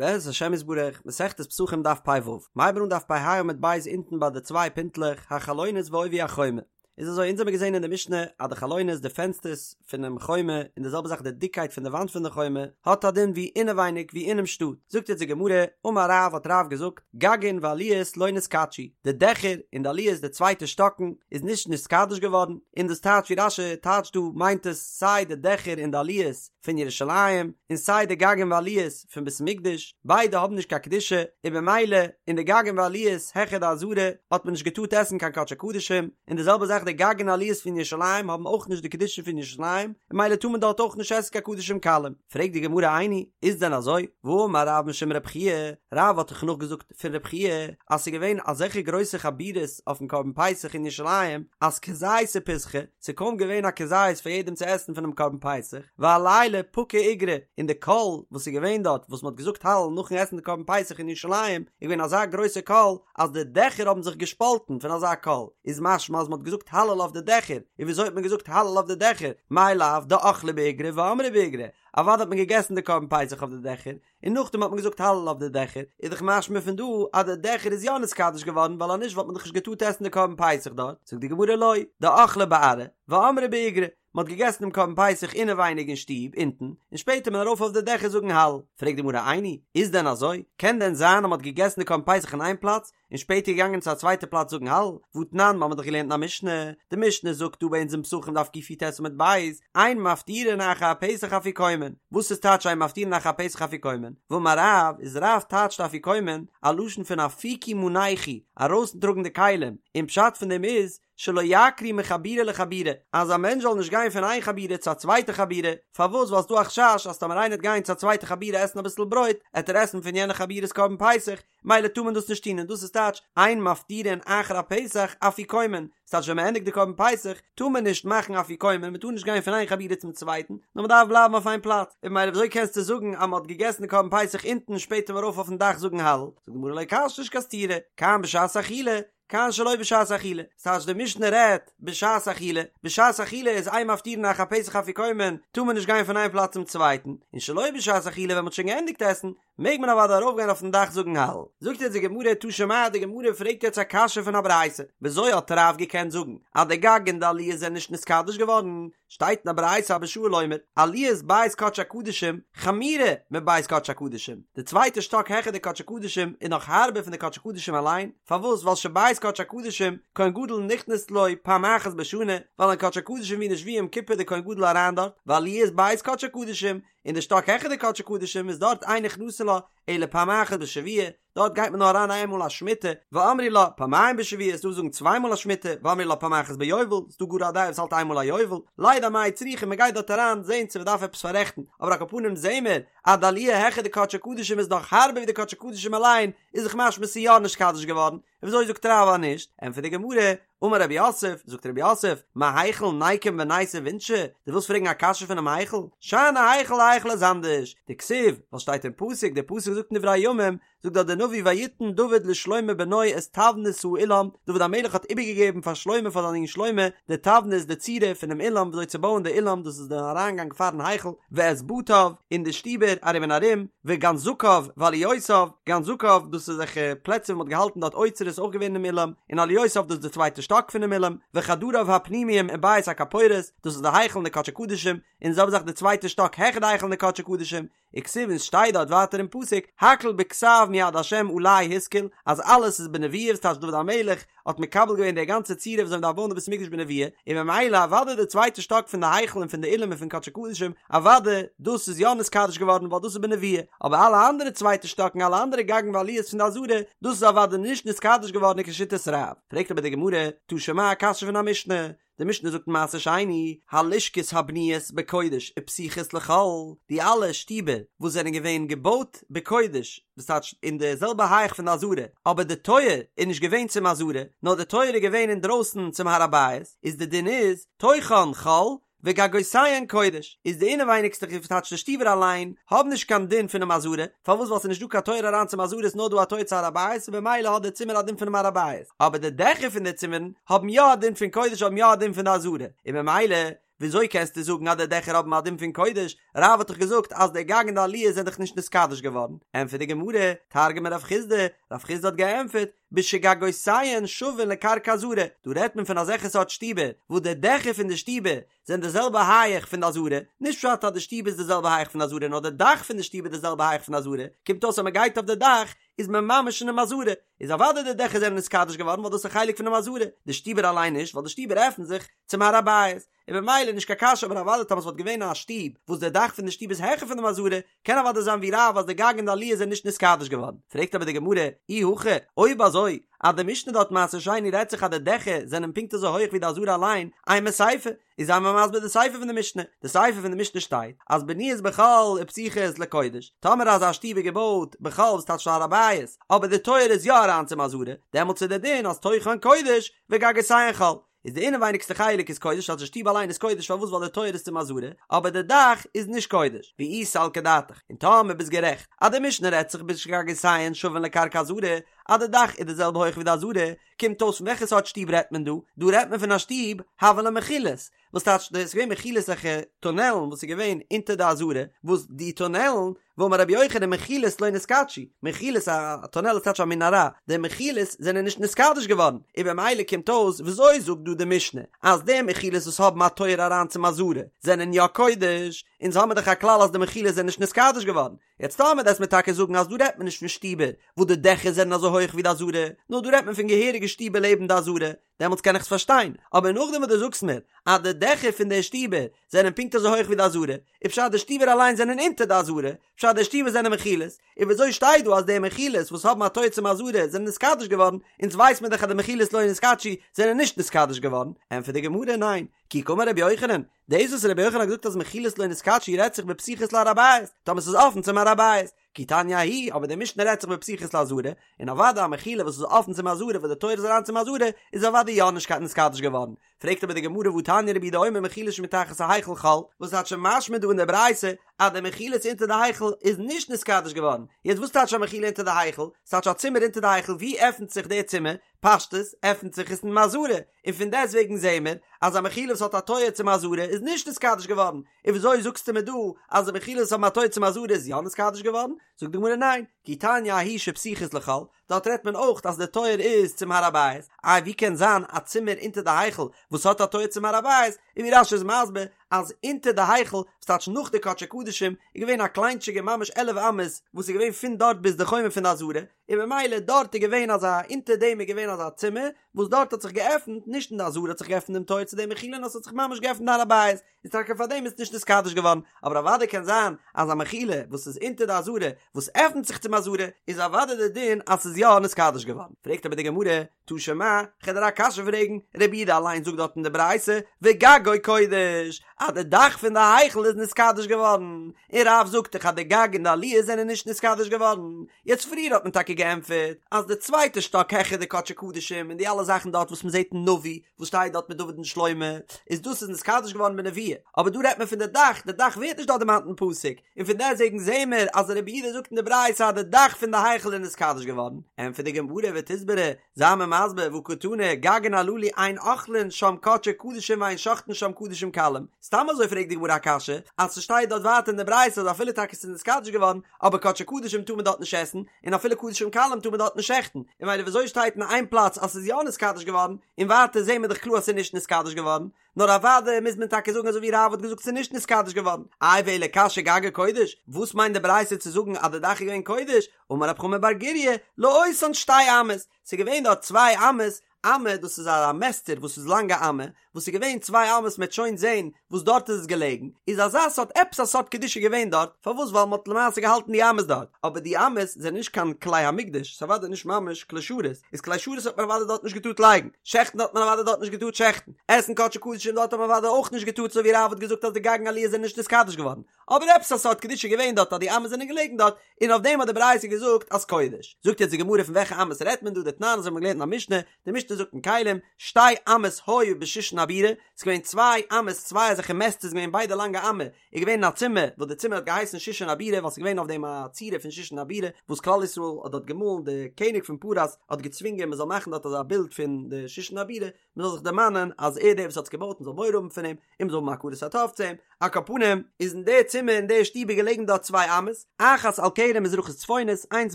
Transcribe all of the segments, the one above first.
בעזרת השם יתברך, מסכת פסחים דף פ"ו, מ'הייבן אן דף פ"ה עמוד ב' אונטן ביי די צוויי פינטלעך, החלונות ועובי החומה. איז אזוי, אונז האמיר געזען אין די משנה אז די חלונות, די פענסטערס פונעם חומה, און די זעלבע זאך די דיקקייט פון די וואנט פון די חומה, האט א דין ווי אינעווייניג ווי אינעם שטאט. זאגט יעצט די גמרא, אמר רב האט רב געזאגט, גגין ועליות לא נתקדשו, די דעכער און די עליות די צווייטע שטאקן איז נישט נתקדש געווארן, און דאס טייטש ווי רש"י טייטשט דא מיינט עס סיי די דעכער און די עליות פון ירושלים און סיי די גגין ועליות פון בית המקדש, ביידע האבן נישט קיין קדושה, און במילא אין די גגין ועליות העכער די עזרה האט מען נישט געטארט עסן קיין קדשי קדשים, און די זעלבע זאך די גגין ועליות פון ירושלים האבן אויך נישט די קדושה פון ירושלים, ממילא טאר מען דארט אויך נישט עסן קיין קדשים קלים. פרעגט די גמרא איני, איז דען אזוי? והאמר רב משום רב חייא, רב האט דאך נאכגעזאגט פון רב חייא אז ס'איז געווען אזעלכע גרויסע חבורות אויפן קרבן פסח אין ירושלים אז כזיתא פסחא, ס'איז קוים געווען א כזית פאר יעדעם צו עסן פונעם קרבן פסח, ועלילא פקע איגרא, און די קול וואס איז געווען דארט וואס מ'האט געזאגט הלל נאכן עסן די קרבן פסח אין ירושלים איז געווען אזא גרויסע קול אז די דעכער האבן זיך געשפאלטן פון אזא קול, איז משמע אז מ'האט געזאגט הלל אויף די דעכער, און וויאזוי האט מען געזאגט הלל אויף די דעכער, מאי לאו דאכלי באיגרא ואמרי באיגרא, אוודאי האט מען געגעסן די קרבן פסח אויף די דעכער, און נאכדעם האט מען געזאגט הלל אויף די דעכער, איז דאך משמע פון דא אז די דעכער איז יא נתקדש געווארן ווייל אז נישט וואלט מען דאך נישט געטארט עסן די קרבן פסח דארט, זאגט די גמרא לא, דאכלי בארעא, ואמרי באיגרא, מען האט געגעסן דעם קרבן פסח אינעווייניג אין שטוב אונטן, און שפעטער איז מען ארויף אויף די דעכער זאגן הלל. פרעגט די גמרא איני, איז דען אזוי? קען דען זיין אז מען האט געגעסן די קרבן פסח אין איין פלאץ, און שפעטער געגאנגען צו א צווייטע פלאץ זאגן הלל? והתנן, מיר האבן דאך געלערנט אין א משנה, די משנה זאגט דא ביי אונז אין פסחים דף קי"ט עמוד ב', אין מפטירין אחר הפסח אפיקומן, וואס איז טייטש אין מפטירין אחר הפסח אפיקומן? ואמר רב, איז רב טייטשט אפיקומן א לשון פון אפיקו מנייכו, ארויסטראגן די כלים, און פשט פון דעם איז, שלא יעקרו מחבורה לחבורה, אז א מענטש זאל נישט גיין פון איין חבורה צו א צווייטע חבורה, פארוואס ווייל ס'דא א חשש אז טאמער איינער וועט גיין צו א צווייטע חבורה עסן אביסל ברויט, עט ער עסן פון יענע חבורה'ס קרבן פסח, מילא טאר מען דאס נישט טון און דאס איז טייטש אין מפטירין אחר הפסח אפיקומן, ס'טייטש ווען מ'ענדיגט די קרבן פסח טאר מען נישט מאכן אפיקומן, מ'טאר נישט גיין פון איין חבורה צום צווייטן, נאר מ'דארף בלייבן אויף איין פלאץ, און ממילא וויאזוי קענסטו זאגן אז מ'האט געגעסן די קרבן פסח אונטן און שפעטער ארויף אויפן דאך זאגן הלל? זאגט די גמרא לא קשיא נישט קיין סתירה, כאן בשעת אכילה, כאן שלא בשעת אכילה, ס'טייטש די משנה רעדט בשעת אכילה, בשעת אכילה איז אין מפטירין אחר הפסח אפיקומן, טאר מען נישט גיין פון איין פלאץ צום צווייטן, און שלא בשעת אכילה ווען מ'האט שוין געענדיגט עסן, מעג מען אוודאי ארויפגיין אויפן דאך זאגן הלל. זאגט יעצט די גמרא תא שמע, די גמרא פרעגט יעצט א קשיא פון א ברייתא, וויאזוי האט רב געקענט זאגן אז די גג און די עליות זענען נישט נתקדש געווארן, שטייט אין א ברייתא אבא שאול אומר, עליית בית קדשי הקדשים חמורה מבית קדשי הקדשים, די צווייטע שטאק העכער די קדשי קדשים איז נאך הארבער פון די קדשי קדשים אליין, פארוואס ווייל שבית קדשי הקדשים כהן גדול נכנס לו פעם אחת בשנה, ווייל אין קדשי קדשים ווי נישט ווי יום כיפור די כהן גדול אריין דארט, ועליית בית קדשי הקדשים, און די שטאק העכער די קדשי קדשים איז דארט אין נכנסין לה אלא פעם אחת בשבוע, דארט גייט מען נאר אריין איין מאל א שמיטה, ואמרי לה פעמיים בשבוע, ס'דא וואס זאגן צוויי מאל א שמיטה, ואמרי לה פעם אחת ביובל, ס'דא גאר א דעה וואס האלט איין מאל א יובל, לידע מאי צריכא מען גייט דארט אריין זעהן צו מען דארף עפעס פאררעכטן, אבער על כל פנים זעהן מיר אז די עליה העכער די קדשי קדשים איז נאך הארבער ווי די קדשי קדשים אליין, איז דאך משמע ס'איז יא נתקדש געווארן, וויאזוי זאגט רב אז נישט? ענטפערט די גמרא, אמר רב יוסף, זאגט רב יוסף, מהיכל ניקום וניתיב אינשי, דו ווילסט פרעגן א קשיא פונעם היכל? שאני היכל, היכל איז אנדערש, דכתיב, ווייל שטייט אין פסוק, דער פסוק זאגט אין דברי הימים, זאגט דארט דער נביא ויתן דוד לשלמה בנו את תבנית האולם, דוד המלך האט איבערגעגעבן פאר שלמה פאר זיין זון שלמה, די תבנית די צורה פונעם אולם וויאזוי צו בויען די אולם, דאס איז דער אריינגאנג פארן היכל, ואת בתיו, און די שטיבער ארום און ארום, וגנזכיו ועליותיו, גנזכיו דאס איז אזעלכע פלעצער וואו מ'האט געהאלטן דארט אוצרות אויך געווען אינעם אולם, און עליותיו דאס איז די צווייטע שטאק פונעם אולם, וחדריו הפנימיים ובית הכפורת, דאס איז די היכל און די קדשי קדשים, און די זעלבע זאך די צווייטע שטאק העכער די היכל און די קדשי קדשים, וכתיב און ס'שטייט דארט ווייטער אין פסוק, הכל בכתב מיד השם עלי השכיל, אז אלעס איז בנבואה וואס טייטש דוד המלך האט מקבל געווען די גאנצע צורה וויאזוי מ'דארף בויען די בית המקדש בנבואה, און ממילא אוודאי די צווייטע שטאק פון די היכל און פון די אולם און פון קדשי קדשים, אוודאי דאס איז יא נתקדש געווארן ווייל דאס איז בנבואה, אבער אלע אנדערע צווייטע שטאקן אלע אנדערע גגין ועליות פון די עזרה, דאס איז אוודאי נישט נתקדש געווארן כשיטת רב. פרעגט אבער די גמרא, תא שמע א קשיא פון א משנה, די משנה זאגט אין מעשר שני, הלשכות הבנויות בקודש ופתוחות לחול, די אלע שטיבער וואס זענען געווען געבויט בקודש, דאס טייטש אין די זעלבע הייך פון די עזרה, אבער די טויער איז נישט געווען צום עזרה, נאר די טויער איז געווען אינדרויסן צום הר הבית, איז די דין איז, תוכן חול, וגגותיהן קודש, איז די אינעווייניגסטע וואס טייטש די שטיבער אליין, האבן נישט קיין דין פונעם עזרה, פארוואס ווייל ס'איז נישט דא קיין טויער אריין צום עזרה איז נאר דא א טויער צו הר הבית און במילא האט די צימער א דין פונעם הר הבית, אבער די דעכער פון די צימערן האבן יא א דין פון קודש האבן יא א דין פון די עזרה, און במילא. וויאזוי קענסטו זאגן אז די דעכער האבן א דין פון קודש, רב האט דאך געזאגט אז די גג און די עליות זענען דאך נישט נתקדש געווארן, ענטפערט די גמרא, תרגמה רב חסדא, רב חסדא האט געענטפערט, בשגגותיהן שווין לקרקע עזרה, דא רעדט מען פון אזעלכע סארט שטיבער וואס די דעכער פון די שטיבער זענען די זעלבע הייעך פון די עזרה, נישט פשט אז די שטוב איז די זעלבע הייעך פון די עזרה נאר די דאך פון די שטוב איז די זעלבע הייעך פון די עזרה, קומט אויס אז מען גייט אויף די דאך איז מען ממש אינעם עזרה, איז אוודאי די דעכער זענען נתקדש געווארן ווייל דאס איז א חלק פונעם עזרה, די שטיבער אליין נישט ווייל די שטיבער עפנט זיך צום הר הבית, און במילא נישט קיין קשיא אבער אוודאי טאמער ס'וואלט געווען א שטוב וואס די דאך פון די שטוב איז העכער פונעם עזרה קען אוודאי זיין ווי רב אז די גג און די עליות זענען נישט נתקדש געווארן, פרעגט אבער די גמרא, אי הכי, אויב אזוי אז די משנה דארט מעשר שני רעדט זיך אז די דעכער זענען פונקט אזוי הויך ווי די עזרה אליין, אימא סיפא, איז זיי מיר מסביר די סיפא פון די משנה, די סיפא פון די משנה שטייט אז בנויות בחול ופתוחות לקודש, טאמער אזא שטוב איז געבויט בחול וואס טייטש הר הבית, אבער די טויער איז יא אריין צום עזרה, דעמאלטס איז די דין אז תוכן קודש וגגותיהן חול, איז די אינעווייניגסטע חלק איז קודש אז די שטוב אליין איז קודש פארוואס ווייל די טויער איז צום עזרה, אבער די דאך איז נישט קודש, ואי סלקא דעתך, און טאמער ביסט גערעכט אז די משנה רעדט זיך בשגגותיהן שווין לקרקע עזרה, אז די דאך איז די זעלבע הויך ווי די עזרה, קומט אויס פון וועלכע סארט שטוב רעדט מען דא? דא רעדט מען פון א שטוב הוו לה מחילות, וואס טייטש דאס איז געווען מחילות אזעלכע טונעלן וואס איז געווען אונטער די עזרה, וואס די טונעלן ואמר רבי יוחנן מחילות לא נתקדשו, מחילות א טונעל איז טייטש א מנהרה, די מחילות זענען נישט נתקדש געווארן, און במילא קומט אויס וויאזוי זאגט דא די משנה אז די מחילות וואס האבן א טויער אריין צום עזרה זענען יא קודש, אונז האמיר דאך א כלל אז די מחילות זענען נישט נתקדש געווארן, יעצט טאמער וועסט מיר טאקע זאגן אז דא רעדט מען נישט פון שטיבער וואס די דעכער זענען אזוי הויך ווי די עזרה, נאר דא רעדט מען פון געהעריגע שטיבער לעבן די עזרה, דעמאלטס קען איך עס פארשטיין, אבער נאכדעם וואס דו זאגסט מיר אז די דעכער פון די שטיבער זענען פונקט אזוי הויך ווי די עזרה, איז פשט די שטיבער אליין זענען אונטער די עזרה, פשט די שטיבער זענען מחילות, און וויאזוי שטייט דא אז די מחילות וואס האבן א טויער צום עזרה זענען נתקדש געווארן, אונז ווייס מיר דאך אז די מחילות לא נתקדשו זענען נישט נתקדש געווארן, ענטפערט די גמרא ניין, כי קאמר רבי יוחנן, דאס וואס רבי יוחנן האט געזאגט אז מחילות לא נתקדשו רעדט זיך בפתוחות להר הבית, טאמער ס'איז אפן צום הר הבית, כי תניא ההיא, אבער די משנה רעדט זיך בפתוחות לעזרה, און אוודאי א מחילה וואס איז אפן צום עזרה וואס די טויער איז אריין צום עזרה, איז אוודאי יא נישט קיין נתקדש געווארן. פרעגט אבער די גמרא והתניא רבי יהודה אומר מחילות שמתחת ההיכל חול, וואס טייטש משמע דא אין די ברייתא אז די מחילות אונטער די היכל איז נישט נתקדש געווארן, יעצט וואס טייטש א מחילה אונטער די היכל? ס'טייטש א צימער אונטער די היכל, ווי עפנט זיך די צימער? פשטות עפנט זיך עס אין עזרה, און פון דעסט וועגן זעהן מיר אז א מחילה וואס האט א טויער צום עזרה איז נישט נתקדש געווארן, און וויאזוי זאגסטו מיר דא אז די מחילות וואס האבן א טויער צום עזרה איז יא נתקדש געווארן? זאגט די גמרא ניין, כי תניא ההיא שפתוחות לחול, דארט רעדט מען אויך אז די טויער איז צום הר הבית, איי ווי קען זיין א צימער אונטער די היכל וואס האט א טויער צום הר הבית, און ווי רש"י איז מסביר אז אונטער די היכל, וואס טייטש נאך די קדשי קדשים, איז געווען א קליינטשיגע ממש עלף אמות וואס איז געווען פון דארט ביז די חומה פון די עזרה, און במילא דארט איז געווען אזא אונטער דעם איז געווען אזא צימער וואס דארט האט זיך געעפנט נישט אין די עזרה האט זיך געעפנט דעם טויער צו די מחילה נאר ס'האט זיך ממש געעפנט הר הבית איז טאקע פאר דעם איז נישט נתקדש געווארן אבער אוודאי קען זיין אז א מחילה וואס איז אונטער די עזרה וואס עפנט זיך צום עזרה איז אוודאי די דין אז ס'איז יא נתקדש געווארן פרעגט אבער די גמרא תא שמע, כ'על דיר א קשיא פרעגן, רבי יהודה אליין זאגט דארט אין די ברייתא, וגגו קודש, אז די דאך פון די היכל איז נתקדש געווארן, און רב זאגט דאך אז די גג און די עליות זענען נישט נתקדש געווארן, יעצט פריער האט מען טאקע געענטפערט אז די צווייטע שטאק העכער די קדשי קדשים און די אלע זאכן דארט וואס מען זעט אין נביא וואס שטייט דארט מיט דוד און שלמה, איז דאס איז נתקדש געווארן בנבואה, אבער דא רעדט מען פון די דאך, די דאך ווערט נישט דארט דערמאנט אין פסוק, און פון דעסטוועגן זעהן מיר אז רבי יהודה זאגט אין די ברייתא אז די דאך פון די היכל איז נתקדש געווארן, ענטפערט די גמרא ותסברא, זיי מיר מסביר והא קתני, גגין הללו אין אוכלין שם קדשי קדשים ואין שוחטין שם קדשים קלים, סתם אזוי פרעגט די גמרא א קשיא, אז ס'שטייט דארט ווייטער אין די ברייתא אז אפילו טאקע ס'איז נתקדש געווארן, אבער קדשי קדשים טאר מען דארט נישט עסן, און אפילו קדשים קלים טאר מען דארט נישט שעכטן, און ממילא וויאזוי שטייט אין איין פלאץ אז ס'איז יא נתקדש געווארן, און ווייטער זעהן מיר דאך קלאר אז ס'איז נישט נתקדש געווארן, נאר אוודאי מוז מען טאקע זאגן אזוי ווי רב האט געזאגט ס'איז נישט נתקדש געווארן. איי ואלא קשיא גגו קודש, וואס מיינט די ברייתא צו זאגן אז די דאך איז געווען קודש, אמר רב חמא בר גוריא, לאותן שתי אמות, ס'איז געווען דארט צוויי אמות, אמה דאס איז א מעסטער וואס איז לאנג א אמה, וואס איז געווען צוויי אמות מ'עט שוין זען וואס דארט איז עס געלעגן, איז אזא סארט עפעס א סארט קדושה געווען דארט, פארוואס ווייל מ'האט למעשה געהאלטן די אמות דארט, אבער די אמות זענען נישט קיין כלי המקדש, ס'איז אוודאי נישט ממש כלי שרת, איז כלי שרת האט מען אוודאי דארט נישט געטארט לייגן, שעכטן האט מען אוודאי דארט נישט געטארט שעכטן, עסן קדשי קדשים דארט האט מען אוודאי אויך נישט געטארט אזוי ווי רב האט געזאגט אז די גג און עליות זענען נישט נתקדש געווארן, אבער עפעס א סארט קדושה געווען דארט אז די אמות זענען געלעגן דארט, און אויף דעם האט די ברייתא געזאגט אז קודש. זאגט יעצט די גמרא פון וועלכע אמות רעדט מען דא, דתנן אזוי האט מען געלערנט אין א משנה, די משנה. משנה זאגט אין כלים, שתי אמות היו בשושן הבירה, ס'איז געווען צוויי אמות, צוויי אזעלכע מעסטערס געווען ביידע לאנגע אמה, איז געווען אין א צימער, וואס די צימער האט געהייסן שושן הבירה, ווייל ס'איז געווען אויף דעם א צורה פון שושן הבירה, וואס כלל ישראל האט דארט געמאלן, די קעניג פון פרס האט געצווינגען מען זאל מאכן דארט אזא בילד פון די שושן הבירה, מען זאל זיך דערמאנען אז ער דער וואס האט עס געבויט מען זאל מורא האבן פון אים, און מען זאל האבן הכרת הטוב צו אים, על כל פנים איז אין די צימער אין די שטוב איז געלעגן דארט צוויי אמות, אחת על קרן מזרחית צפונית, איינס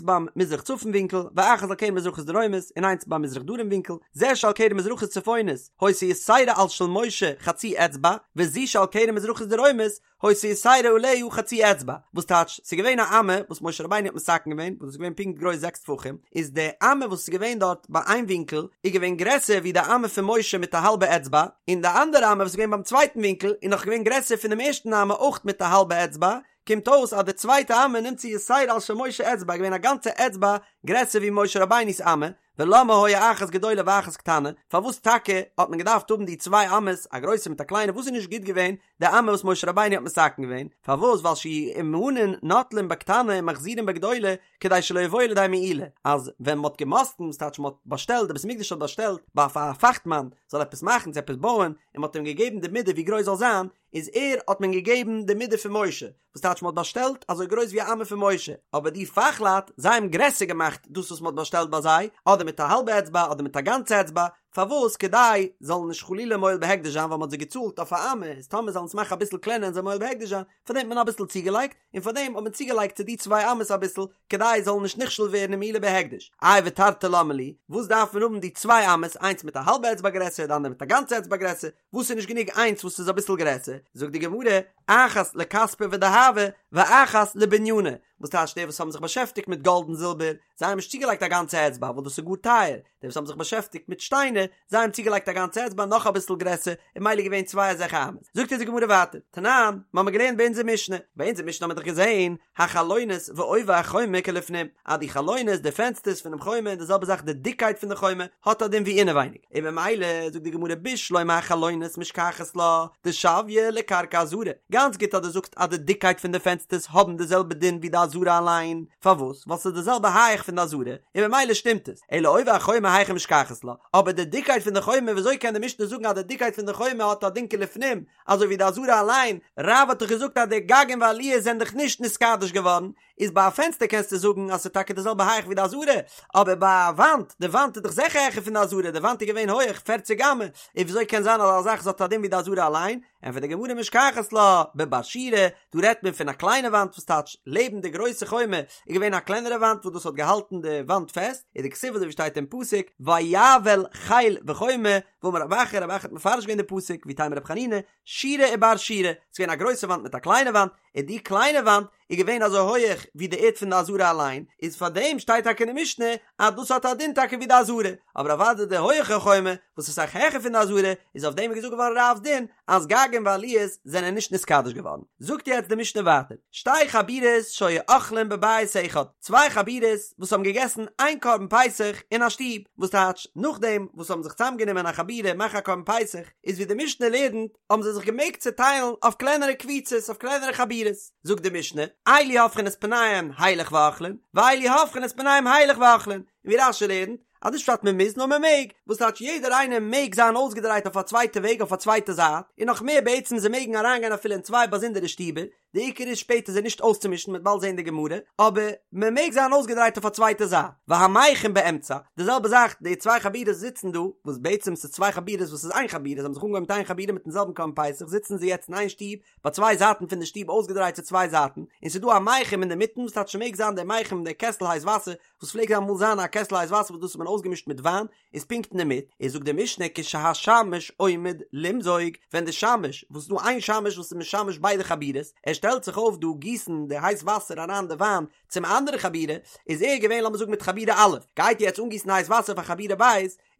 ביים מזרח צפון ווינקל, ואחת על קרן מזרחית דרומית, און איינס ביים מזרח דרום ווינקל, זה שעל קרן מזרחית צפונית, היתה יתירה על של משה חצי אצבע, וזו שעל קרן מזרחית דרומית, היתה יתירה עליה חצי אצבע, וואס טייטש, ס'איז געווען א אמה וואס משה רבינו האט מתקן געווען, וואס איז געווען פונקט גרויס זעקס טפחים, איז די אמה וואס איז געווען דארט ביי איין ווינקל, איז געווען גרעסער ווי די אמה פון משה מיט א האלבע אצבע, און די אנדערע אמה וואס איז געווען ביים צווייטן ווינקל איז נאך געווען גרעסער פון דעם ערשטן אמה אויך מיט א האלבע אצבע, קומט אויס אז די צווייטע אמה נמצא יתירה על של משה אצבע איז געווען א גאנצע אצבע גרעסער ווי משה רבינו'ס אמה, ולמה היה אחת גדולה ואחת קטנה, פארוואס טאקע האט מען געדארפט האבן די צוויי אמות, א גרויסע מיט א קליינע, וואס איז נישט גוט געווען די אמה וואס משה רבינו האט מתקן געווען, פארוואס ווייל שיהו אומנין נוטלין בקטנה ומחזירין בגדולה כדי שלא יבואו לידי מעילה, אז ווען מ'האט געמאסטן, וואס טייטש מ'האט באשטעלט, די בית המקדש האט באשטעלט ביי א פאכטמאן זאל עפעס מאכן צו עפעס בויען, און מ'האט אים געגעבן די מידה ווי גרויס זאל זיין, איז ער האט מען געגעבן די מידה פון משה, וואס טייטש מ'האט באשטעלט אזוי גרויס ווי א אמה פון משה, אבער די פאכלייט זיי האבן גרעסער געמאכט דאס וואס מ'האט באשטעלט ביי זיי, אדער מיט א האלבע אצבע אדער מיט א גאנצע אצבע, פארוואס? כדי זאלן נישט חלילה מועל בהקדש זיין ווייל מ'האט זיי געצאלט אויף א אמה, איז טאמער זאלן עס מאכן אביסל קלענער און זיי מועל בהקדש זיין, פארדעם האט מען אביסל צוגעלייגט, און פארדעם האט מען צוגעלייגט צו די צוויי אמות אביסל, כדי זאלן נישט נכשל ווערן אין מעילה בהקדש. איי ותרתי למה לי, וואס דארף מען האבן די צוויי אמות, איינס מיט א האלבע אצבע גרעסער, די אנדערע מיט א גאנצע אצבע גרעסער, וואס איז נישט גענוג איינס וואס איז אביסל גרעסער, זאגט די גמרא, אחת לכספא ודהבא, ואחת לבניינא, וואס טייטש די וואס האבן זיך באשעפטיגט מיט גאלד און זילבער, זיי האבן נישט צוגעלייגט א גאנצע אצבע ווייל דאס איז גאר טייער, די וואס האבן זיך באשעפטיגט מיט שטיינער, זיי האבן צוגעלייגט א גאנצע אצבע נאך אביסל גרעסער, און ממילא געווען צוויי אזעלכע אמות. זאגט אונז די גמרא ווייטער, תנן, מ'האמיר געלערנט ביי אונזער משנה, ביי אונזער משנה האמיר דאך געזען, החלונות ועובי החומה כלפנים, אז די חלונות, די פענסטערס פונעם חומה, און די זעלבע זאך די דיקקייט פון די חומה, האט א דין ווי אינעווייניג, און ממילא זאגט די גמרא בשלמא החלונות משכחת לה דשויה לקרקע עזרה, גאנץ גוט אז דו זאגסט אז די דיקקייט פון די פענסטערס האבן די זעלבע דין ווי די עזרה אליין, פארוואס? ווייל ס'איז די זעלבע הייך פון די עזרה, און ממילא שטימט עס, אלא עובי החומה היכי משכחת לה, אבער די דיקקייט פון די חומה וויאזוי קען די משנה זאגן אז די דיקקייט פון די חומה האט א דין כלפנים, אזוי ווי די עזרה אליין, רב האט דאך געזאגט אז די גגין ועליות זענען דאך נישט נתקדש געווארן, איז ביי א פענסטער קענסטו זאגן אז ס'איז טאקע די זעלבע הייך ווי די עזרה, אבער ביי א וואנט, די וואנט איז דאך זיכער העכער פון די עזרה, די וואנט איז געווען הויעך פערציג אמה, איז וויאזוי קען זיין אז א זאך האט א דין ווי די עזרה אליין? ענטפערט די גמרא משכחת לה בבר שורה, דא רעדט מען פון א קליינע וואנט וואס טייטש לעבן די גרויסע חומה איז געווען א קלענערע וואנט וואס דאס האט געהאלטן די וואנט פעסט, איז דכתיב אזוי ווי שטייט אין פסוק ויאבל חיל וחומה, ואמר רב אחא, רב אחא האט מפרש געווען די פסוק, ואיתימא רב חנינא, שורה ובר שורה, ס'איז געווען א גרויסע וואנט מיט א קליינע וואנט, און די קליינע וואנט איז געווען אזוי הויעך ווי די ערד פון די עזרה אליין, איז פאר דעם שטייט טאקע אין די משנה אז דאס האט א דין טאקע ווי די עזרה, אבער אוודאי די הויעכע חומה וואס איז אסאך העכער פון די עזרה, איז אויף דעם געזאגט געווארן רב'ס דין אז גגין ועליות זענען נישט נתקדש געווארן. זאגט יעצט די משנה ווייטער, שתי חבורות שהיו אוכלים בבית אחד, צוויי חבורות וואס האבן געגעסן איין קרבן פסח אין א שטוב, וואס טייטש נאכדעם וואס האבן זיך צוזאמגענומען א חבורה מאכן א קרבן פסח, איז ווי די משנה לערנט, האבן זיי זיך געמעגט צעטיילן אויף קלענערע קבוצות, אויף קלענערע חבורות. זאגט די משנה, אלו הופכין את פניהם הילך ואוכלין, ואלו הופכין את פניהם הילך ואוכלין, און ווי רש"י לערנט, אז נישט פשט מען מוז נאר מען מעג, וואס טייטש יעדער איינער מעג זיין אויסגעדרייט אויף א צווייטע וועג אויף א צווייטע זייט, און נאך מער בעצם זיי מעגן אריינגיין אפילו אין צוויי באזונדערע שטיבער, די עיקר איז שפעטער זיי נישט אויסצומישן מ'וועט באלד זען די גמרא, אבער מען מעג זיין אויסגעדרייט אויף א צווייטע זייט, והמיחם באמצע, די זעלבע זאך די צוויי חבורות זיצן דא, וואס בעצם ס'איז צוויי חבורות וואס איז איין חבורה, זיי האבן זיך אנגעהויבן מיט איין חבורה מיטן זעלבן קרבן פסח זיצן זיי יעצט אין איין שטוב ביי צוויי זייטן פון די שטוב אויסגעדרייט צו צוויי זייטן, און ס'איז דא א מיחם אינדערמיטן וואס טייטש ס'מעג זיין דער מיחם דער קעסל הייס וואסער וואס פלעגט אמאל זיין א קעסל הייס וואסער וואס דאס האט מען אויסגעמישט מיט וויין, איז פונקט אינדערמיט, איז זאגט די משנה כשהשמש עומד למזוג, ווען די שמש, וואס איז דא איין שמש וואס איז משמש ביידע חבורות, ער שטעלט זיך אויף דא גיסן די הייס וואסער אריין די וויין צום אנדערע חבורה, איז ער געווען לאמיר זאגן מיט חבורה א', גייט יעצט אנגיסן הייס וואסער פאר חבורה ב',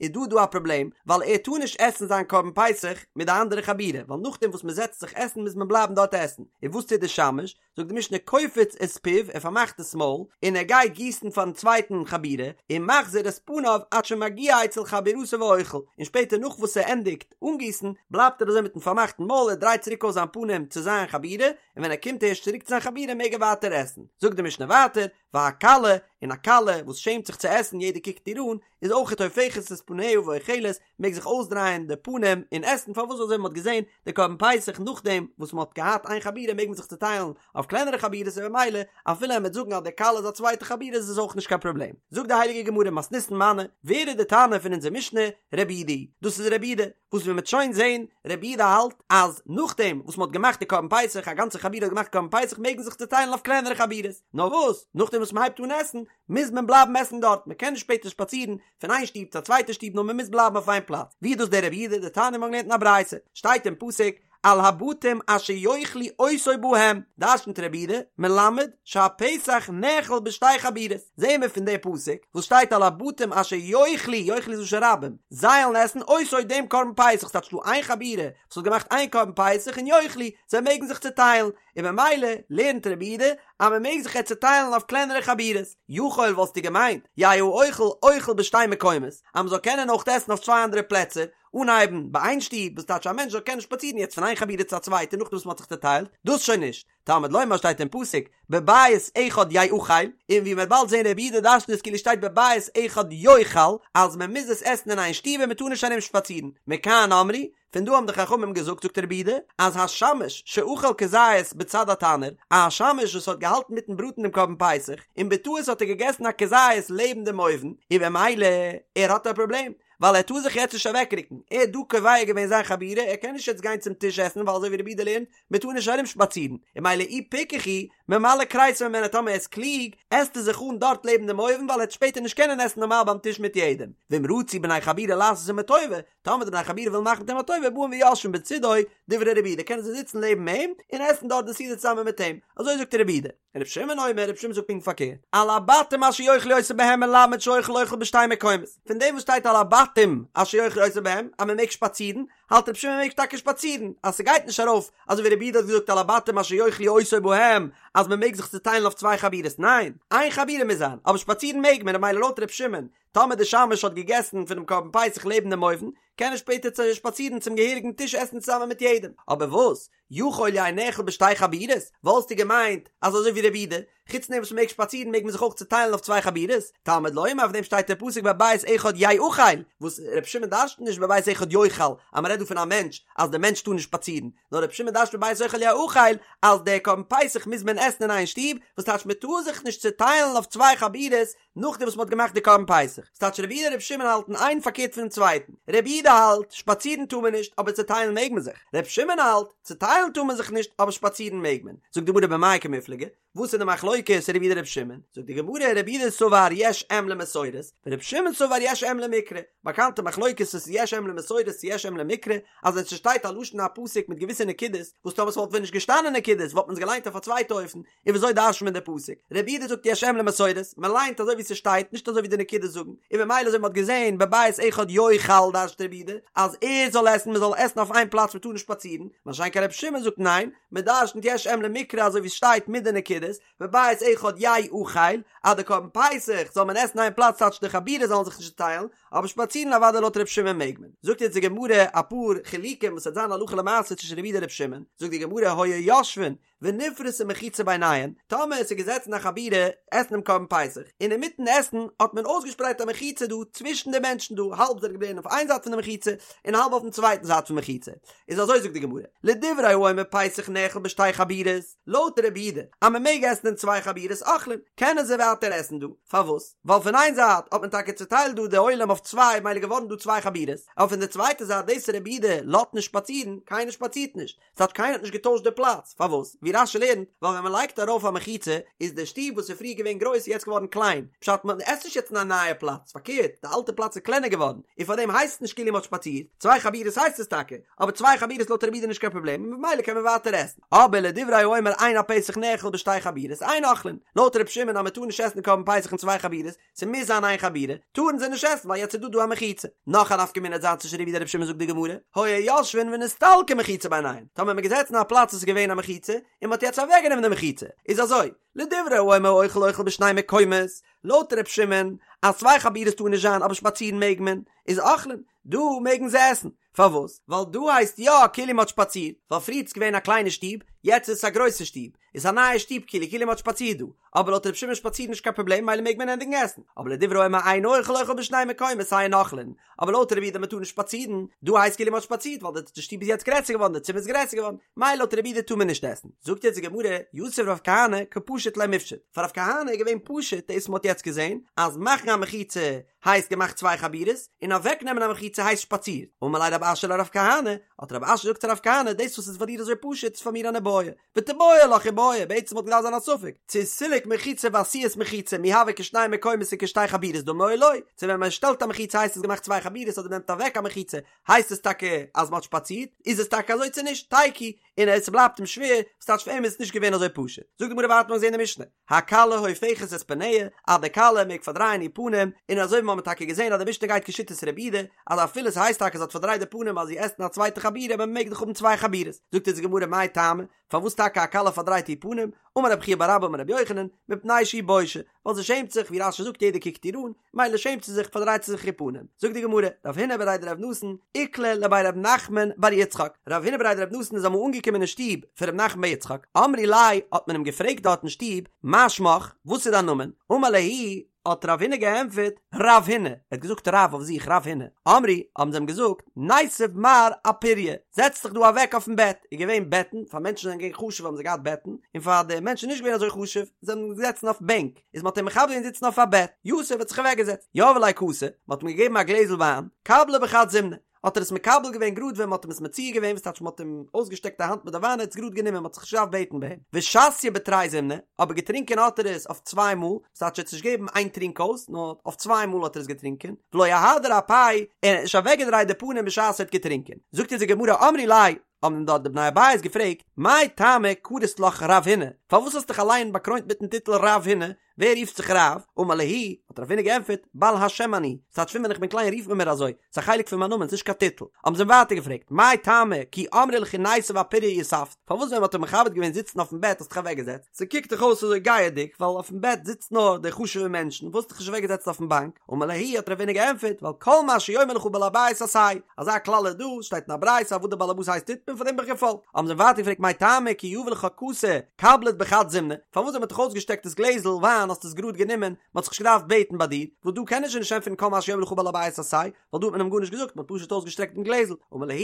איז דא דא א פראבלעם, ווייל ער טאר נישט עסן זיין קרבן פסח מיט די אנדערע חבורה, ווייל נאכדעם וואס מען זעצט זיך עסן מוז מען בלייבן דארט עסן, און וואס טוט די שמש? זאגט די משנה קופץ את פיו ער פארמאכט דאס מויל און ער גייט גיסן פארן צווייטן חבורה ומחזיר את פניו עד שמגיע אצל חבורתו ואוכל און שפעטער נאך וואס ער ענדיגט אנגיסן בלייבט ער אזוי מיטן פארמאכטן מויל ער דרייט צוריק אויס זיין פנים צו זיין חבורה און ווען ער קומט ערשט צוריק צו זיין חבורה מעג ער ווייטער עסן זאגט די משנה ווייטער והקלא. און א כלה וואס שעמט זיך צו עסן יעדער קוקט איר אן, איז אויכעט הופכת את פניה ואוכלת, מעג זיך אויסדרייען די פנים און עסן, פארוואס אזוי ווי מען האט געזען די קרבן פסח נאכדעם וואס מען האט געהאט איין חבורה מעג מען זיך צוטיילן אויף קלענערע חבורות און במילא אפילו ער וועט זאגן אז די כלה איז א צווייטע חבורה איז עס אויך נישט קיין פראבלעם. זאגט די הייליגע גמרא מתניתין מני, ווער איז די תנא פון אונזער משנה? רבי יהודה, דאס איז רבי יהודה, וואס ווי מען וועט שוין זען, רבי יהודה האלט אז נאכדעם וואס מען האט געמאכט די קרבן פסח, א גאנצע חבורה האט געמאכט קרבן פסח מעג מען זיך צוטיילן אויף קלענערע חבורות, נאר וואס, נאכדעם וואס מען הייבט אן עסן, מוז מען בלייבן עסן דארט, מען קען נישט שפעטער שפאצירן פון איין שטוב צו א צווייטע שטוב נאר מען מוז בלייבן אויף איין פלאץ, ווי איז דאס דער רבי יהודה, דתניא מיר האבן געלערנט אין א ברייתא, שטייט אין פסוק, על הבתים אשר יאכלו אותו בהם, דרשנ'ט רבי יהודה, מלמד שהפסח נאכל בשתי חבורות, זעהן מיר פון די פסוק וואס שטייט על הבתים אשר יאכלו, יאכלו איז לשון רבים, זיי וועלן עסן אותו דעם קרבן פסח, ס'טייטש דא איין חבורה וואס האט געמאכט איין קרבן פסח און יאכלו, זיי מעגן זיך צוטיילן, און ממילא לערנט רבי יהודה אז מען מעג זיך יעצט צוטיילן אויף קלענערע חבורות, יכול וואלסטו געמיינט, יהא האוכל אוכל בשתי מקומות, אז מען זאל קענען אויך עסן אויף צוויי אנדערע פלעצער, אנהייבן ביי איין שטוב, וואס טייטש א מענטש זאל קענען שפאצירן יעצט פון איין חבורה צו א צווייטע נאכדעם וואס מען האט זיך צוטיילט, דאס שוין נישט. תלמוד לומר שטייט אין פסוק, בבית אחד יאכל, און ווי מען וועט באלד זען רבי יהודה דרשנ'ט עס כאילו שטייט בבית אחד יאכל, אז מען מוז עס עסן אין איין שטוב און מען טאר נישט ארום שפאצירן, מכאן אמרו, פון דא האבן די חכמים געזאגט זאגט רבי יהודה, אז השמש שאכל כזית בצד התנור, א שמש וואס האט געהאלטן מיטן בראטן דעם קרבן פסח, און בטעות האט ער געגעסן א כזית לעבן דעם אויוון, און במילא ער האט א פראבלעם, ווייל ער טאר זיך יעצט נישט אוועקרוקן, ער האט דא קובע געווען זיין חבורה, ער קען נישט יעצט גיין צום טיש עסן ווייל אזוי ווי רבי יהודה לערנט, מען טאר נישט ארום שפאצירן, און ממילא אי פיקח הוא, ממלא כריסו ממנה טאמער ער איז קלוג, עסט ער זיך אן דארט לעבן דעם אויוון ווייל ער וועט שפעטער נישט קענען עסן נארמאל ביים טיש מיט יעדעם, ואם רצו בני חבורה לעשות עמו טובה, טאמער די בני חבורה ווילן מאכן מיט אים א טובה באים ויושבין בצידו, דברי רבי יהודה קענען זיי זיצן לעבן אים און עסן דארט די סעודה צוזאמען מיט אים, אזוי זאגט רבי יהודה. רבי שמעון אומר, רבי שמעון זאגט פונקט פארקערט, על הבתים אשר יאכלו אותו בהם מלמד שהאוכל אוכל בשתי מקומות, פון דעם וואס שטייט על הבתים אשר יאכלו אותו בהם אז מען מעג שפאצירן, האלט רבי שמעון מען מעג טאקע שפאצירן, אז ס'גייט נישט ארויף אזוי ווי רבי יהודה האט געזאגט על הבתים אשר יאכלו אותו בהם אז מען מעג זיך צוטיילן אויף צוויי חבורות, ניין, איין חבורה מוז זיין, אבער שפאצירן מעג מען, ממילא לויט רבי שמעון, טאמער די שמש האט געגעסן פונעם קרבן פסח לעבן דעם אויוון, קען ער שפעטער שפאצירן צום געהעריגן טיש עסן צוזאמען מיט יעדעם, אבער וואס? יכול יהא נאכל בשתי חבורות, וואלסטו געמיינט אז אזוי ווי רבי יהודה, חוץ דעם וואס מ'מעג שפאצירן מעג מען זיך אויך צוטיילן אויף צוויי חבורות, תלמוד לומר אויף דעם שטייט דער פסוק בבית אחד יאכל, וואס רבי שמעון דרש'נט נישט בבית אחד יאכל אז מ'רעדט דא פון א מענטש אז דער מענטש טאר נישט שפאצירן, נאר רבי שמעון דרש'נט בבית אחד יאכל אז דער קרבן פסח מוז מען עסן אין איין שטוב, וואס טייטש מ'טאר זיך נישט צוטיילן אויף צוויי חבורות, נאכדעם וואס מ'האט געמאכט די קרבן פסח. ס'טייטש רבי יהודה און רבי שמעון האלטן איין פארקערט פונעם צווייטן. רבי יהודה האלט, שפאצירן טאר מען נישט, אבער צעטיילן מעג מען זיך. רבי שמעון האלט, צעטיילן טאר מען זיך נישט, אבער שפאצירן מעג מען. זאגט די גמרא במאי קמיפלגי, וואס איז די מחלוקת רבי יהודה רבי שמעון? זאגט די גמרא, רבי יהודה סבר יש אם למסורת, ורבי שמעון סבר יש אם למקרא. באקאנטע מחלוקת צו ס'איז יש אם למסורת צו יש אם למקרא, אז ווען ס'שטייט א לשון הפסוק מיט געוויסע נקודות, וואס טאמער ס'וואלט ווען נישט געשטאנען נקודות וואלט מען עס געליינט אויף א צווייטע אופן, און וויאזוי דרש'נט מען די פסוק? רבי יהודה זאגט יש אם למסורת, מען ליינט אזוי ווי ס'שטייט, נישט אזוי ווי די נקודות זאגן, און ממילא אזוי ווי מ'האט געזען בבית אחד יאכל דרש'נט רבי יהודה אז ער זאל עסן, מען זאל עסן אויף איין פלאץ מען טאר נישט שפאצירן, מה שאין כן רבי שמעון זאגט ניין, מען דרש'נט יש אם למקרא אזוי ווי ס'שטייט מיט די נקודות, בבית אחד יאכל, אז די קרבן פסח זאל מען עסן איין פלאץ טייטש די חבורה זאלן זיך נישט צוטיילן, אבער שפאצירן אוודאי לויט רבי שמעון מעג מען. זאגט יעצט די גמרא אפאר חילוקים וואס וועט זיין הלכה למעשה צווישן רבי יהודה און רבי שמעון, זאגט די גמרא היו יושבין ונפרסה מחיצה ביניהן, טאמער עס איז געזעצן א חבורה עסן דעם קרבן פסח, און אינמיטן עסן האט מען אויסגעשפרייט א מחיצה דא צווישן די מענטשן דא, האלב זענען געבליבן אויף איין זייט פון די מחיצה, און האלב אויפן צווייטן זייט פון מחיצה, איז אזוי זאגט די גמרא, לדברי האומר פסח נאכל בשתי חבורות, לויט רבי יהודה אז מען מעג עסן אין צוויי חבורות אוכלין, קענען זיי ווייטער עסן דא, פארוואס? ווייל פון איין זייט האט מען טאקע צוטיילט דא די עולם אויף צוויי ממילא געווארן דא צוויי חבורות, אבער פון די צווייטע זייט דאס רבי יהודה לאזט נישט שפאצירן, קיינער שפאצירט נישט, ס'טייטש קיינער האט נישט געטוישט די פלאץ, פארוואס? ווי רש"י לערנט, ווייל ווען מ'לייגט ארויף א מחיצה, איז די שטוב וואס איז פריער געווען גרויס איז יעצט געווארן קליין, פשט מען עסט נישט יעצט אין א נייע פלאץ, פארקערט, די אלטע פלאץ איז קלענער געווארן, און פארדעם הייסט עס נישט כאילו מ'האט שפאצירט, צוויי חבורות הייסט עס טאקע, אבער צוויי חבורות לויט רבי יהודה איז נישט קיין פראבלעם און ממילא קען מען ווייטער עסן. אבער לדברי האומר אין הפסח נאכל בשתי חבורות, אין אוכלין, לויט ר' שמעון אז מ'טאר נישט עסן קרבן פסח אין צוויי חבורות, ס'מוז זיין איין חבורה, טארן זיי נישט עסן ווייל יעצט איז דא דא א מחיצה. נאך א נפקא מינה וועט זיין צווישן רבי יהודה און רבי שמעון זאגט די גמרא, היו יושבין ונסתלקה מחיצה ביניהן, טאמער מ'איז געזעצן אין א פלאץ וואס איז געווען א מחיצה, און מ'האט יעצט אוועקגענומען די מחיצה, איז אזוי, לדברי האומר האוכל אוכל בשני מקומות, לויט רבי שמעון, אז צוויי חבורות טאר נישט זיין אבער שפאצירן מעג מען, איז אוכלין, דא מעגן זיי עסן. פארוואס? ווייל דא הייסט יא כאילו מ'האט שפאצירט, ווייל פריער איז געווען א קליינע שטוב, יעצט איז עס א גרויסע שטוב, איז א נייע שטוב כאילו כאילו מ'האט שפאצירט דא, אבער לויט ר' שמעון שפאצירן נישט קיין פראבלעם מילא מעג מען ענדיגן עסן, אבער לדברי האומר אין אוכל אוכל בשני מקומות אין אוכלין, אבער לויט רבי יהודה מ'טאר נישט שפאצירן, דא הייסט כאילו מ'האט שפאצירט ווייל די שטוב איז יעצט גרעסער געווארן די צימער איז גרעסער געווארן, מילא לויט רבי יהודה טאר מען נישט עסן. זאגט יעצט די גמרא, יתיב רב כהנא קא פשיט ליה מפשט, פאר רב כהנא איז געווען פשוט דאס וואס מ'האט יעצט געזען אז מאכן א מחיצה הייסט געמאכט צוויי חבורות, און אוועק נעמען א מחיצה הייסט שפאצירט. אמר ליה רב אשי לרב כהנא, האט רב אשי געזאגט צו רב כהנא, דאס וואס איז פאר דיר אזוי פשוט איז פאר מיר אן איבעיא, ותיבעי לך איבעיא, בעצם וואלט געדארפט זיין א ספק, צו סילוק מחיצה ועשיית מחיצה מי הוי כשני מקומות וכשתי חבורות דמי או לא, צו ווען מען שטעלט א מחיצה הייסט עס געמאכט צוויי חבורות אדער מען נעמט אוועק א מחיצה הייסט עס טאקע אז מען האט שפאצירט, איז עס טאקע אזוי צו נישט, תיקו, און עס בלייבט אים שווער, וואס טייטש פאר אים איז עס נישט געווען אזוי פשוט. זאגט די גמרא ווייטער מ'האט געזען אין די משנה, הכלה הופכת את פניה, אז די כלה מעג פארדרייען איר פנים, און אזוי ווי מ'האמיר טאקע געזען אז די משנה גייט כשיטת רבי יהודה, אז אפילו ס'הייסט טאקע זי האט פארדרייט די פנים אז זי עסט אין א צווייטע חבורה אבער מ'מעג דאך האבן צוויי חבורות. זאגט אונז די גמרא מאי טעמא, פארוואס טאקע א כלה פארדרייט איר פנים, אמר רב חייא בר אבא אמר רבי יוחנן, מפני שהיא בושה, ווייל זי שעמט זיך, ווי רש"י זאגט יעדער קוקט איר אן, מילא שעמט זי זיך פארדרייט זי זיך איר פנים. זאגט די גמרא, רב הונא בריה דרב נתן, איקלע לבי רב נחמן בר יצחק, רב הונא בריה דרב נתן איז אמאל אנגעקומען אין שטוב פון רב נחמן בר יצחק, אמרי ליה, האט מען אים געפרעגט דארט אין שטוב, מה שמך, וואס איז דיין נאמען? אמר להו, האט רב הונא געענטפערט, רב הונא, ער האט געזאגט רב אויף זיך רב הונא, אמרי, האבן זיי אים געזאגט, ניתיב מר אפוריא, זעץ דיך דא אוועק אויפן בעט, איז געווען בעטן, פאר מענטשן זענען געווען חשוב האבן זיי געהאט בעטן, און פאר די מענטשן נישט געווען אזוי חשוב, זענען געזעצן אויף בענק, איז מען האט אים מכבד געווען זיצן אויף א בעט, יתיב האט זיך אוועק געזעצט, יהבו ליה כסא, מען האט אים געגעבן א גלעזל וויין, קבליה בחד זימנא, האט ער עס מקבל געווען גראד ווען מען האט אים עס מציע געווען, וואס טייטש מען האט אים אויסגעשטעקט א האנט מיט די וויין ער האט עס גראד גענומען מען האט זיך נישט געדארפט בעטן ביי אים, ושתיה בתרי זימני, אבער געטרינקען האט ער עס אויף צוויי מאל, וואס טייטש ער האט עס נישט געגעבן איין טרינק אויס, נאר אויף צוויי מאל האט ער עס געטרינקען, ולא אהדר אפיה, און ער האט נישט אוועקגעדרייט די פנים בשעת ער האט געטרינקען. זאגט אונז די גמרא אמרי ליה, האבן אים דארט די בני הבית געפרעגט, מאי טעמא קרית לך רב הונא, פארוואס האסטו דיך אליין באקרוינט מיטן טיטל רב הונא, ווער רופט זיך רב? אמר להו, האט רב הונא געענטפערט, בעל השם אני, ס'טייטש פון ווען איך בין קליין רופט מען מיר אזוי, ס'איז א חלק פון מיין נאמען, ס'נישט קיין טיטל. האבן זיי אים ווייטער געפרעגט, מאי טעמא כי אמרי ליכא ניתיב אפוריא יתבת, פארוואס ווען מ'האט דיך מכבד געווען זיצן אויפן בעט האסטו דיך אוועקגעזעצט? ס'קוקט דאך אויס אזוי גאוה'דיג, ווייל אויפן בעט זיצט נאר די חשוב'ע מענטשן, וואס האסטו דיך נישט אוועקגעזעצט אויפן באנק? אמר להו, האט רב הונא געענטפערט, ווייל כל מה שיאמר לך בעל הבית עשה, אזא כלל איז דא, שטייט אין א ברייתא אז וואס דער בעל הבית הייסט טוט מען, פאר דעם בין איך געפאלגט. האבן זיי אים ווייטער געפרעגט מאי טעמא כי יהבו לך כסא קבלת בחד זימנא, פארוואס ווען מען האט דיך אויסגעשטעקט דאס גלעזל וויין האסטו עס גראד גענומען, מען האט זיך נישט געדארפט בעטן ביי דיר, וואס דא קען ער שוין נישט ענטפערן כל מה שיאמר לך בעל הבית עשה, ווייל דא האט מען אים גארנישט געזאגט, מען האט פשוט אויסגעשטרעקט דעם גלעזל. אמר להו,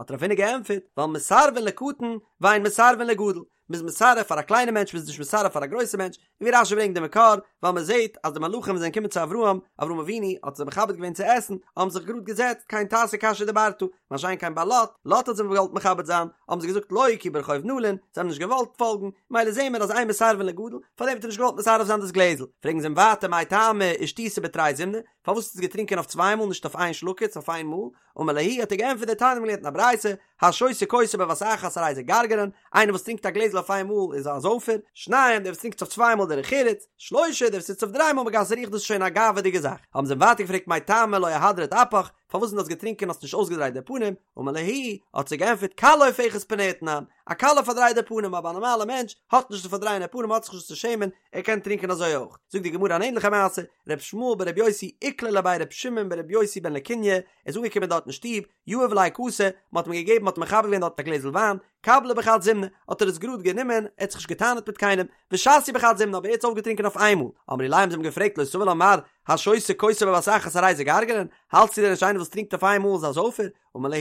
האט רב הונא געענטפערט, ווייל מסרבין לקטן ואין מסרבין לגדול, מ'איז מסרב פאר א קליינע מענטש מ'איז נישט מסרב פאר א גרויסע מענטש, און ווי רש"י ברענגט די מקור, ווייל מ'זעט אז די מלאכים זענען געקומען צו אברהם, אברהם אבינו האט זיי מכבד געווען צו עסן, האבן זיך גראד געזעצט, כן תעשה כאשר דברת, מה שאין כן ביי לוט, לוט האט זיי געוואלט מכבד זיין, האבן זיי געזאגט לא כי ברחוב נלין, זיי האבן נישט געוואלט פאלגן, מילא זעהן מיר אז אין מסרבין לגדול, פארדעם האט ער נישט געוואלט מסרב זיין דאס גלעזל, פרעגן זיי אים ווייטער מאי טעמא אישתית בתרי זימני, פארוואס האסטו עס געטרינקען אויף צוויי מאל נישט אויף איין שלוקעץ אויף איין מאל, אמר להו האט ער געענטפערט דתניא מ'האט געלערנט אין א ברייתא, השותה כוסו בבת אחת הרי זה גרגרן, איינער וואס טרינקט א גלעזל אויף איין מאל איז א זויפער, שניים דער וואס טרינקט עס אויף צוויי מאל דרך ארץ, שלושה דער וואס טוט עס אויף דריי מאל מגסי הרוח דאס איז שוין א גאווה'דיגע זאך, האבן זיי אים ווייטער געפרעגט מאי טעמא לא אהדרת אפך, פארוואס ווען דו האסט געטרינקען האסטו נישט אויסגעדרייט די פנים, אמר להו, האט זיי געענטפערט כלה הופכת פניה תנן, א כלה פארדרייט די פנים אבער א נארמאלע מענטש האט נישט צו פארדרייען די פנים האט זיך נישט צו שעמען, ער קען טרינקען אזוי אויך. זאגט די גמרא אן ענליכע מעשה, ר' ישמעאל בר' יוסי איקלע לבי ר' שמעון בר' יוסי בן לקוניא, ער איז אנגעקומען דארט אין שטוב, יהבו ליה כסא, מען האט אים געגעבן מען האט מכבד געווען דארט א גלעזל וויין, קבליה בחד זימנא, האט ער עס גראד גענומען, ער האט זיך נישט געטענה'ט מיט קיינעם, ושתייה בחד זימנא אבער ער האט עס אויפגעטרינקען אויף איינמאל, אמרי ליה האבן זיי אים געפרעגט לא סבר לה מר השותה כוסו בבת אחת הרי זה גרגרן, האלטסטו דען נישט איינער וואס טרינקט אויף איינמאל איז א זויפער? אמר להו,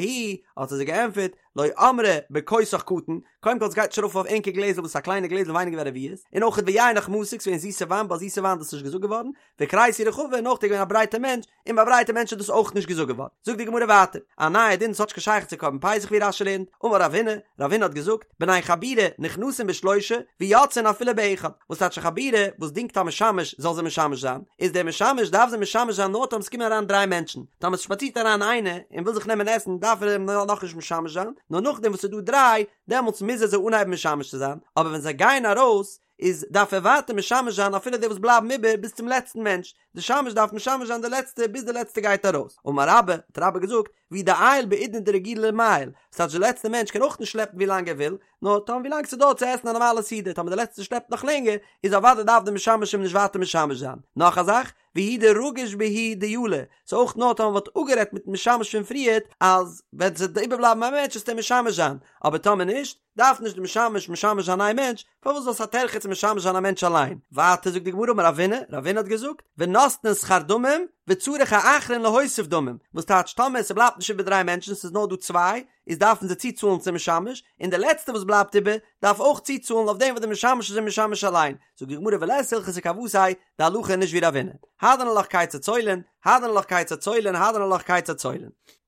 האט ער זיי געענטפערט, לא אמרי בכוסך קטן, קודם כל עס גייט נישט ארויף אויף ענקער גלעזל וואס איז א קליינע גלעזל ווייניגער ווי א רביעית, און אויך ויינך מתוק ס'געווען זיסע וויין ביי זיסע וויין איז דאס נישט געזאגט געווארן, וכריסי רחבה און אויך איז געווען א ברייטע מענטש, און ביי ברייטע מענטשן איז דאס אויך נישט געזאגט געווארן. זאגט די גמרא ווייטער, א נייע דין וואס האט נישט קיין שייכות צו קרבן פסח ווי רש"י לערנט, אמר רב הונא, רב הונא האט געזאגט, בני חבורה נכנסין בשלושה ויוצאין אפילו באחד, וואס טייטש א חבורה וואס דינגט א משמש זאל זיי משמש זיין, איז דער משמש דארף זיי משמש זיין נאר טאמער ס'קומען אריין דריי מענטשן, טאמער ס'שפאצירט אריין איינער און וויל זיך נעמען עסן דארף ער אים נאכנישט משמש זיין, נאר נאכדעם וואס ס'איז דא דריי, דעמאלטס מוז ער זיי אנהייבן משמש צו זיין, אבער ווען זיי גייען ארויס, איז דארף ער ווייטער משמש זיין אפילו די וואס בלייבן איבער ביז צום לעצטן מענטש, די שמש דארף משמש זיין די לעצטע ביז די לעצטע גייט ארויס, אמר רבה, האט רבה געזאגט, והוא דעייל בעידנא דרגילי למיעל, ס'טייטש די לעצטע מענטש קען אויך נישט שלעפן ווי לאנג ער וויל, נאר טאמער ווי לאנג ס'דויערט צו עסן א נארמאלע סעודה, טאמער די לעצטע שלעפט נאך לענגער, איז אוודאי דארף די משמש אים נישט ווייטער משמש זיין. נאך א זאך, והוא דרגיש בהו דיילא, ס'איז אויך נאר טאמער מ'האט אפגערעדט מיטן משמש פון פריערט אז ווען ס'וועט איבערבלייבן א מענטש וועסטו אים משמש זיין, אבער טאמער נישט, דארף נישט די משמש משמש זיין איין מענטש, פארוואס ווייל ס'איז א טרחה צו משמש זיין א מענטש אליין? ווייטער זאגט די גמרא אמר רבינא, רבינא האט געזאגט, ונותנין שכר דמים, וצריך האחרון להוסיף דמים, וואס טייטש טאמער ס'בלייבט נישט איבער דריי מענטשן ס'איז נאר דא צוויי, איז דארפן זיי צוצאלן צום משמש, און די לעצטע וואס בלייבט איבער, דארף אויך צוצאלן אויף דעם וואס די משמש איז אים משמש אליין, זאגט די גמרא ולית הלכתא כוותיה, די הלכה איז נישט ווי רבינא, הדרן עלך כיצד צולין, הדרן עלך כיצד צולין, הדרן עלך כיצד צולין.